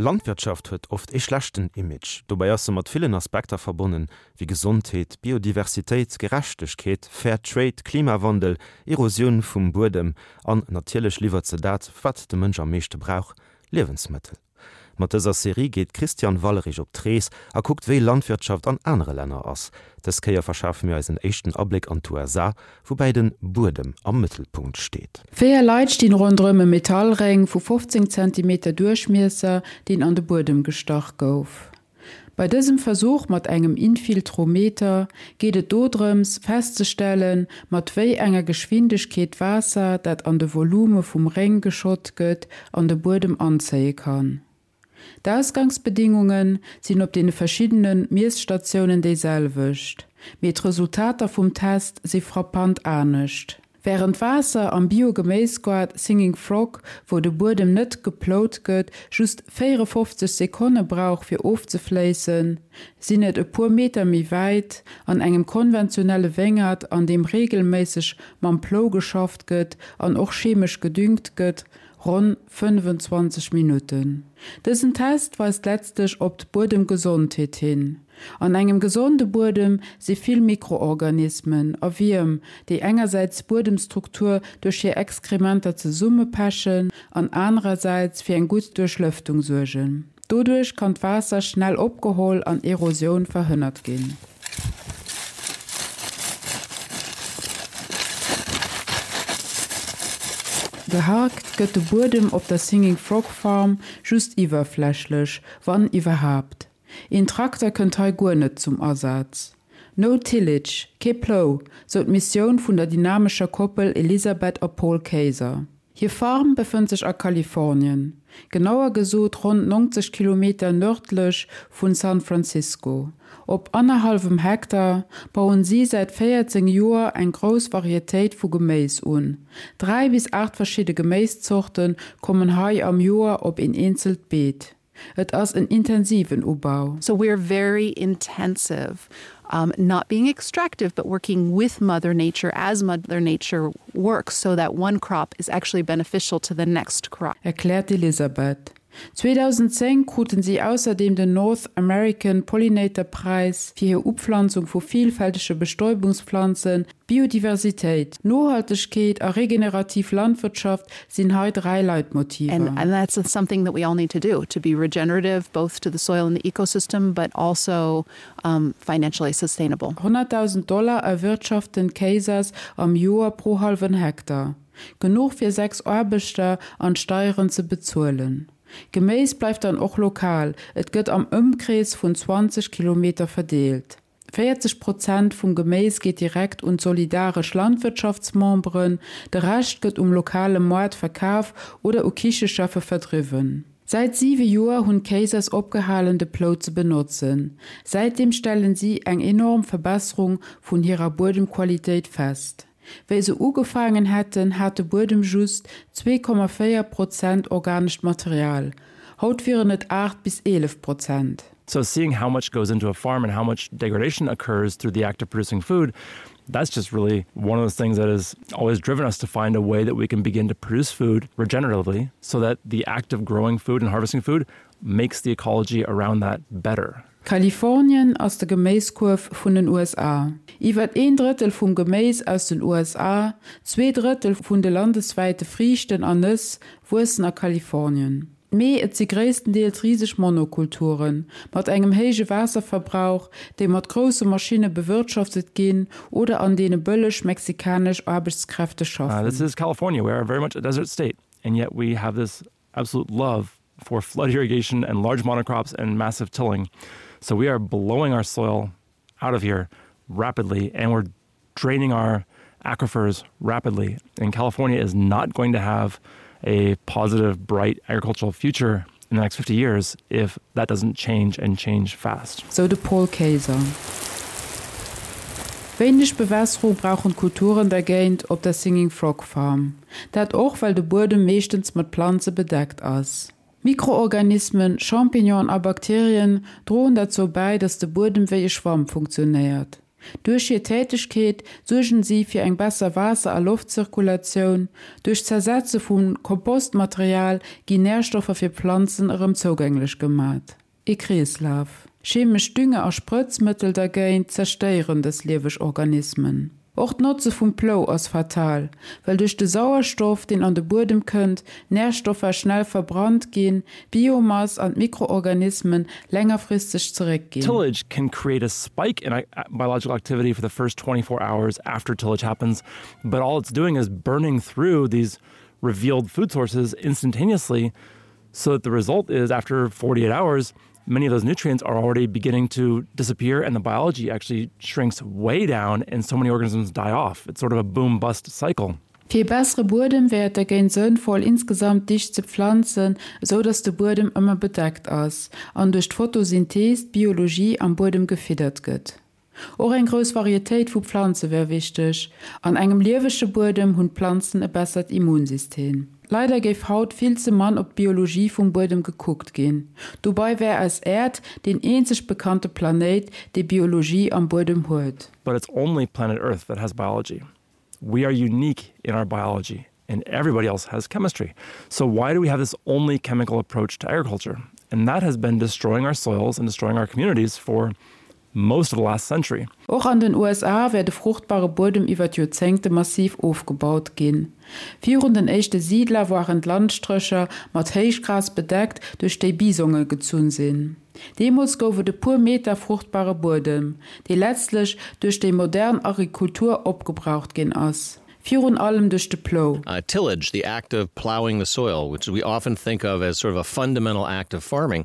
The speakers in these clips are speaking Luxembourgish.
Landwirtschaft huet oft ee schlechten Image. Dobäi ass se mat villen Aspekter verbonnen, wéi Gesondheet, Biodiversitéit, Gerechtegkeet, Fair Trade, Klimawandel, Erosioun vum Buedem an natierlech liwwert se dat, wat de Mënsch am meeschte brauch, Liewensmëttel. Mat dëser Serie geet d'Christiane Wallerich op d'Rees a kuckt wéi Landwirtschaft an anere Länner ass. Dës Kéier verschafe mir eis en éischten Abléck an d'USA, woubäi den Buedem am Mëttelpunkt steet. Véier Leit stinn ronderëm e Metallréng vu 15 Zentimeter Duerchmiesser, deen an de Buedem gestach gouf. Bei dësem Versuch mat engem Infiltrometer geet et dodrëms, festzestellen, mat wéi enger Geschwindegkeet d'Waasser, dat an de Volume vum Réng geschott gëtt, an de Buedem anzéie kann. D'Ausgangsbedingunge sinn op deene verschiddene Miesstatiounen déi selwecht, mee d'Resultater vum Test si frappant anescht. Wärend d'Waasser am Bio-Geméisgoart Singing Frog, wou de Buedem net geplout gëtt, just 54 Sekonne brauch fir ofzefléissen, sinn et e puer Meter méi wäit, an engem konventionelle Wéngert, an deem reegelméisseg mam Plou geschafft gëtt an och chemesch gedüngt gëtt, ronn 25 Minutten. Dësen Test weist letztlech op d'Buedemgesondheet hin. An engem gesonde Buedem si vill Mikroorganismen a Wierm, déi engersäits d'Buedemstruktur duerch hir Exkrementer zesummepechen an anerersäits fir eng gutt Duerchlëftung suergen. Doduerch kann d'Waasser schnell opgeholl an Erosioun verhënnert ginn. Geharkt gëtt de Buedem op der Singing Frog Farm just iwwerflächlech, wann iwwerhaapt. Een Trakter kënnt hei guer net zum Asaz. No tillage, kee Plou, sou d'Missioun vun der dynamescher Koppel Elisabeth a Paul Kayser. Hir Farm befënnt sech a Kalifornien, genauer gesot ronn 90 Kilometer nërdlech vun San Francisco. Op annerhallwem Hektar bauen si säit 14 Joer eng grouss Varietéit vu Geméis un. 3 bis 8 verschidde Geméiszorte kommen hei am Joer op een eenzelt Beet. Et ass en intensiven Ubau. So we're very intensive, um, not being extractive, but working with Mother Nature as Mother Nature works so that one crop is actually beneficial to the next crop. Erkläert d'Elisabeth. 2010 kruten si ausserdeem den North American Pollinator Präis fir hir Upflanzung vu vielfältege Bestäubungspflanzen. Biodiversitéit, Nohaltegkeet a regenerativ Landwirtschaft sinn hei 3 Leitmotiver. And, and that's something that we all need to do, to be regenerative both to the soil and the ecosystem, but also um, financially sustainable. 100.000 Dollar erwirtschaften d'Kaysers am Joer pro hallwen Hektar. Genuch fir 6 Aarbechter an d'Steieren ze bezuelen. Geméis bleift dann och lokal, et gëtt am Ëmkrees vun 20 Kilometer verdeelt. 40 Prozent vum Geméis geet direkt un d'solidaresch Landwirtschaftsmemberen, de Rescht gëtt um lokale Moart verkaf oder u Kichecheffe verdriwwen. Säit siwe Joer hunn d'Kaysers opgehalen de Plou ze benotzen. Säitdeem stellen si eng enorm Verbesserung vun hirer Buedemqualitéit fest. Wéi se ugefaangen hätten, hat de Buedem just 2,4 Prozent organescht Material, haut wieren et 8 bis 11 Prozent. So seeing how much goes into a farm and how much degradation occurs through the act of producing food, that's just really one of those things that has always driven us to find a way that we can begin to produce food regeneratively so that the act of growing food and harvesting food makes the ecology around that better. Kalifornien ass de Geméiskuerf vun den USA. Iwwer een Drëttel vum Geméis aus den USA, 2 Drëttel vun de landeswäite Friichten an Nëss wuessen a Kalifornien. Mee et si gréisstendeels riseg Monokulturen, mat engem héije Waasserverbrauch, déi mat grousse Maschinne bewirtschaftet ginn oder an deene bëlleg mexikanesch Aarbechtskräfte schaffen. This is California, we are very much a desert state and yet we have this absolute love for flood irrigation and large monocrops and massive tilling. So we are blowing our soil out of here rapidly and we're draining our aquifers rapidly. And California is not going to have a positive, bright agricultural future in the next 50 years if that doesn't change and change fast. Sou de Paul Kayser. Wéineg Bewässerung brauchen d'Kulturen dergéint op der Singing Frog Farm. Dat och well de Buedem meeschtens mat Planze bedeckt ass. Mikroorganismen, Champignonen a Bakterien droen derzou bäi, datt de Buedem wéi e Schwamm funktionéiert. Duerch hir Tätegkeet suergen si fir eng besser Waasser a Loftzirkulatioun. Duerch d'Zersetze vu Kompostmaterial ginn Närstoffer fir Planzen erëm zougänglech gemat. Ee Kreeslaf. Chemesch Dünger a Sprëtzmëttel dergéint zerstéieren dës lieweg Organismen. Och d'Notze vum Plou ass fatal, well duerch de Sauerstoff, deen an de Buedem kënnt, Närstoffer schnell verbrannt ginn, d'Biomass an d'Mikroorganismen längerfristeg zeréckginn. Tillage can create a spike in biological activity for the first 24 hours after tillage happens, but all it's doing is burning through these revealed food sources instantaneously so that the result is after 48 hours, many of those nutrients are already beginning to disappear and the biology actually shrinks way down and so many organisms die off. It's sort of a boom bust cycle. Fir ee bessere Buedem wär et dergéint sënnvoll insgesamt dicht ze pflanzen, esou dass de Buedem ëmmer bedeckt ass an duerch d'Photosynthese d'Biologie am Buedem gefiddert gëtt. Och eng grouss Varietéit vu Pflanze wär wichteg. An engem liewege Buedem hunn d'Planzen e bessert Immunsystem. Leider géif haut vill ze mann op d'Biologie vum Buedem gekuckt ginn. Dobei wär eis Äerd deen eenzeg bekannte Planéit, dee Biologie am Buedem huet. But it's only planet Earth that has biology. We are unique in our biology and everybody else has chemistry. So why do we have this only chemical approach to agriculture? And that has been destroying our soils and destroying our communities for most of the last century. Och an den USA wär de fruchtbare Buedem iwwer d'Joerzéngte massiv ofgebaut ginn. Virun den éischte Siidler waren d'Landstrécher mat Héichgras bedeckt, duerch déi Bisonge gezunn sinn. Deemools gouf et e puer Meter fruchtbare Buedem, dee letztlech duerch déi modern Agrikultur opgebraucht ginn ass, virun allem duerch de Plou. Tillage, the act of plowing the soil, which we often think of as sort of a fundamental act of farming,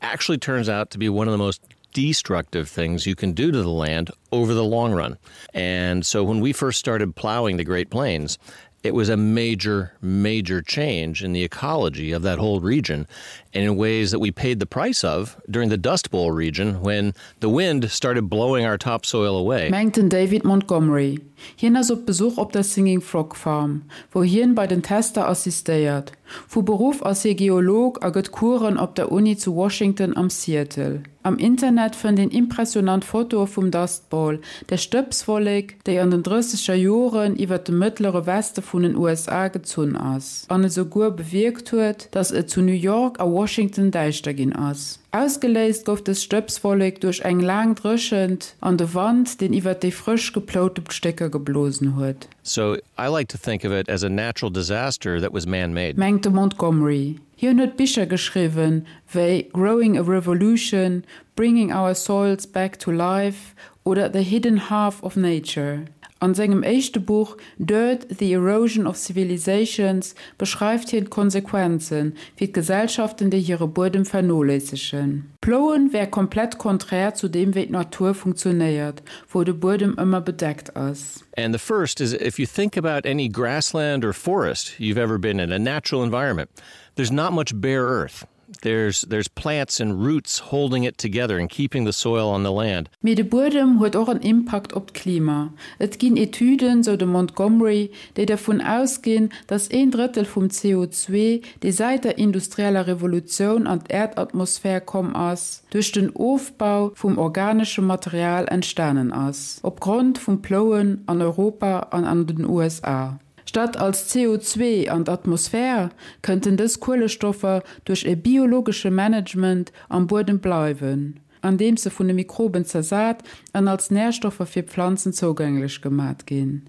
actually turns out to be one of the most destructive things you can do to the land over the long run. And so when we first started plowing the Great Plains, it was a major, major change in the ecology of that whole region and in ways that we paid the price of during the Dust Bowl region when the wind started blowing our topsoil away. Mengt den David Montgomery. Hien ass op Besuch op der Singing Frog Farm, wou hien bei den Tester assistéiert. Vu Beruff ass hie Geolog a gëtt Coursen op der Uni zu Washington am Seattle. Am Internet fënnt een impressionant Fotoe vum Dust Bowl, der Stëbswollek, déi an den drësseger Joren iwwer de mëttlere Weste vun den USA gezunn ass an esouguer bewierkt huet, datt et zu New York a Washington däischter ginn ass. Ausgeléist gouf dës Stëbswollek duerch eng laang Dréchent an de Wand, deen iwwer déi frësch geploute Stécker geblosen huet. So I like to think of it as a natural disaster that was man-made. Mengt de Montgomery. Hien huet Bicher geschriwwen wéi Growing a Revolution, Bringing Our Soils Back to Life oder The Hidden Half of Nature. An sengem éischte Buch Dirt, The Erosion of Civilizations beschreift hien d'Konsequenze fir d'Gesellschaften, déi hire Buedem vernoléissegen. Plouen wär komplett konträr zu deem wéi d'Natur funktionéiert, wou de Buedem ëmmer bedeckt ass. And the first is if you think about any grassland or forest you've ever been in, a natural environment, there's not much bare earth. There's, there's plants and roots holding it together and keeping the soil on the land. Mee de Buedem huet och en Impakt op d'Klima. Et ginn Etüden, sou de Montgomery, déi dervun ausginn, datt een Drëttel vum CO2, dee säit der industrieller Revolutioun an d'Äerdatmosphär komm ass, duerch den Ofbau vum organeschem Material entstanen ass, opgrond vum Plouen an Europa an an den USA. Statt als CO2 an d'Atmosphär, kënnten dës Kuelestoffer duerch e biologesche Management am Buedem bleiwen, andeems se vun de Mikroben zersat an als Närstoffer fir Pflanzen zougänglech gemat ginn.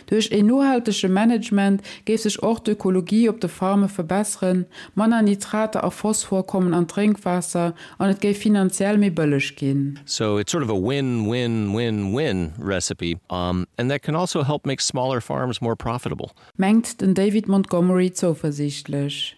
Duerch een nohaltege Management géif sech och d'Ökologie op de Farme verbesseren, manner Nitrater a Phosphor kommen an d'Drénkwaasser an et géif finanziell méi bëlleg ginn. So it's sort of a win-win-win-win recipe and that can also help make smaller farms more profitable. Mengt den David Montgomery zouversiichtlech.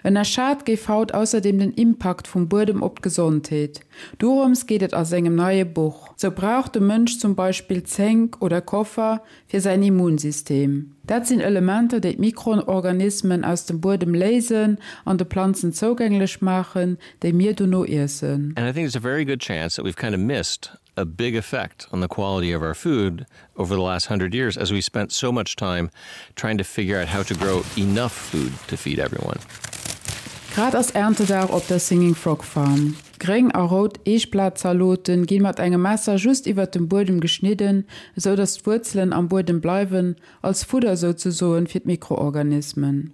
Ënnerschat géif haut ausserdeem den Impakt vum Buedem op d'Gesondheet. Dorëms geet et a sengem neie Buch. Sou brauch de Mënsch zum Beispill Zénk oder Koffer fir säin Immunsystem. Dat sinn Elementer, déi d'Mikroorganismen aus dem Buedem léisen an de Planzen zougänglech maachen, déi mir dono iessen. And I think there's a very good chance that we've kind of missed a big effect on the quality of our food over the last 100 years as we spent so much time trying to figure out how to grow enough food to feed everyone. Grad ass Erntedag op der Singing Frog Farm. Gréng a rout Eechblatzaloten ginn mat engem Messer just iwwert dem Buedem geschnidden, esou dass d'Wuerzelen am Buedem bleiwen, als Fudder souzesoen fir d'Mikroorganismen.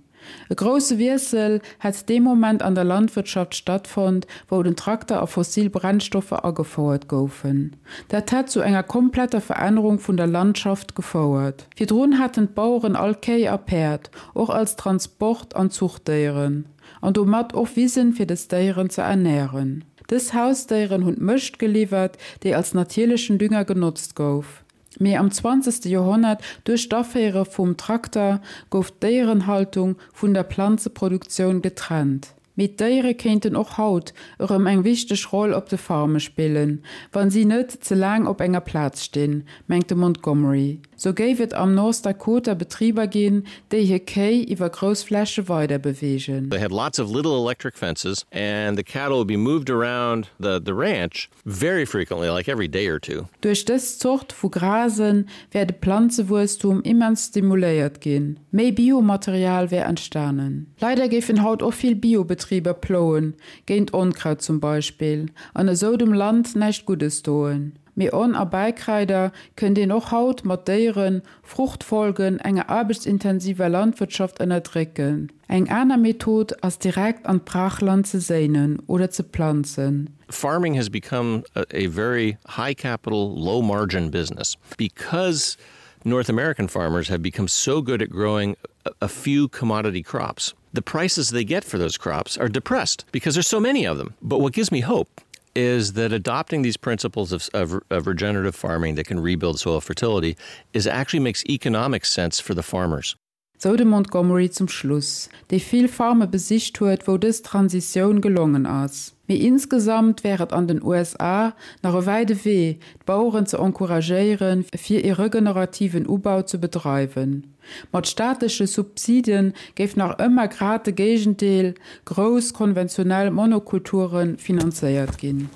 E grousse Wiessel hätt dee Moment an der Landwirtschaft stattfonnt, wou den Trakter a fossil Brennstoffer agefouert goufen. Dat hätt zu enger kompletter Verännerung vun der Landschaft gefouert. Virdrun haten d'Baueren all Kéi a Päerd, och als Transport an Zuchtdéieren, an domat och Wisen fir des Déieren ze ernären. Dës Hausdéieren hunn d'Mëscht geliwwert, déi als natierlechen Dünger genotzt gouf. Mee am zwanzegste Joerhonnert, duerch d'Aféiere vum Trakter, gouf d'Déierenhaltung vun der Planzeproduktioun getrennt. Mee d'Déiere kéinten och haut erëm eng wichteg Roll op de Farme spillen, wa si net ze laang op enger Plaz stinn, mengt de Montgomery. Sou géif et am North Dakota Betriber ginn, déi hir Kéi iwwer grouss Fläche weider beweegen. They had lots of little electric fences and the cattle would be moved around the the ranch Very frequently, like every day or two. Duerch dës Zort vu Grase wär de Planzewuesstum immens stimuléiert ginn, méi Biomaterial wär entstanen. Leider géifen haut och vill Biobetriber plouen, géint Onkraut zum Beispill, an esou dem Land näischt Guddes doen. Mee On a Bäikraider kënnt een och haut mat Déieren, Fruchtfolgen enger aarbechtsintensiver Landwirtschaft ënnerdrécken. Eng aner Method ass direkt an d'Brachland ze séinen oder ze planzen. Farming has become a, a very high capital, low margin business because North American farmers have become so good at growing a, a few commodity crops. The prices they get for those crops are depressed because there's so many of them. But what gives me hope is that adopting these principles of, of, of regenerative farming that can rebuild soil fertility is actually makes economic sense for the farmers. Sou de Montgomery zum Schluss, dee vill Farme besicht huet, wou dës Transitioun gelongen ass. Mee insgesamt wär et an den USA nach e wäide Wee, d'Baueren ze encouragéieren, fir ee regenerativen Ubau ze bedreiwen. Mat staatleche Subside géif nach ëmmer grad de Géigendeel, grouss konventionell Monokulture finanzéiert ginn.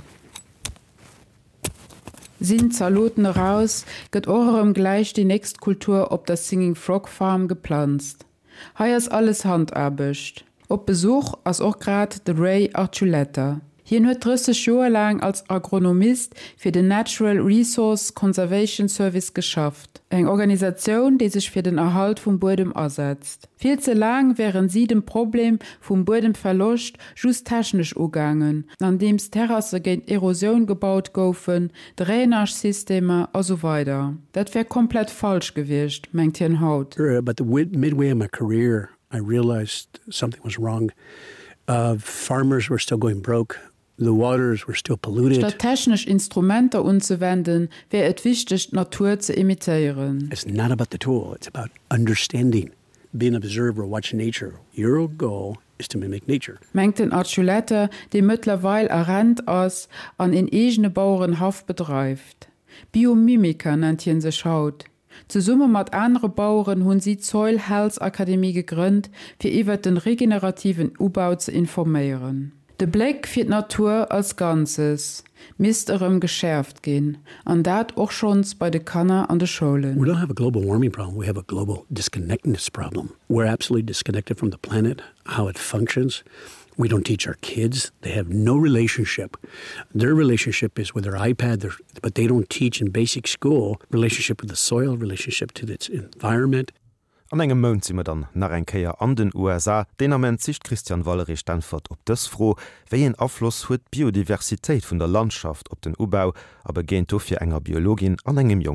Sinn d'Zaloten eraus, gëtt och erëm gläich déi nächst Kultur op der Singing Frog Farm geplanzt. Hei ass alles Handaarbecht. Op Besuch ass och grad de Ray Archuleta. Hien huet 30 Joer laang als Agronomist fir den Natural Resource Conservation Service geschafft, eng Organisatioun, déi sech fir den Erhalt vum Buedem asetzt. Vill ze laang wären si dem Problem vum Buedemverloscht just technesch ugaangen, andeems Terrasse géint Erosioun gebaut goufen, Drainage-Systemer a sou weider. Dat wär komplett falsch gewiescht, mengt hien haut. But the midway in my career, I realized something was wrong. Uh, farmers were still going broke. The waters were still polluted. Statt technesch Instrumenter unzewenden, wär et wichteg, d'Natur ze imitéieren. It's not about the tool, it's about understanding, being an observer, watch nature. Your goal is to mimic nature. Mengt den Archuleta, dee mëttlerweil a Rent ass an een eegene Bauerenhaff bedreift. Biomimiker nennt hien sech haut. Zesumme mat anere Baueren hunn si d'Soil Health Akademie gegrënnt, fir iwwert den regenerativen Ubau ze informéieren. De Bléck fir d'Natur als Ganzes misst erëm geschäerft ginn, an dat och schonns bei de Kanner an de Schoulen. We don't have a global warming problem, we have a global disconnectedness problem. We're absolutely disconnected from the planet, how it functions. We don't teach our kids. They have no relationship. Their relationship is with their iPad, their, but they don't teach in basic school relationship with the soil, relationship to its environment. An engem Mount si mer dann nach eng Kéier an den USA. Deen Ament sicht d'Christiane Wallerich d'Äntwert op dës Fro, Wéi een Afloss huet d'Biodiversitéit vun der Landschaft op den Ubau? A begéint dofir enger Biologin an engem jonke.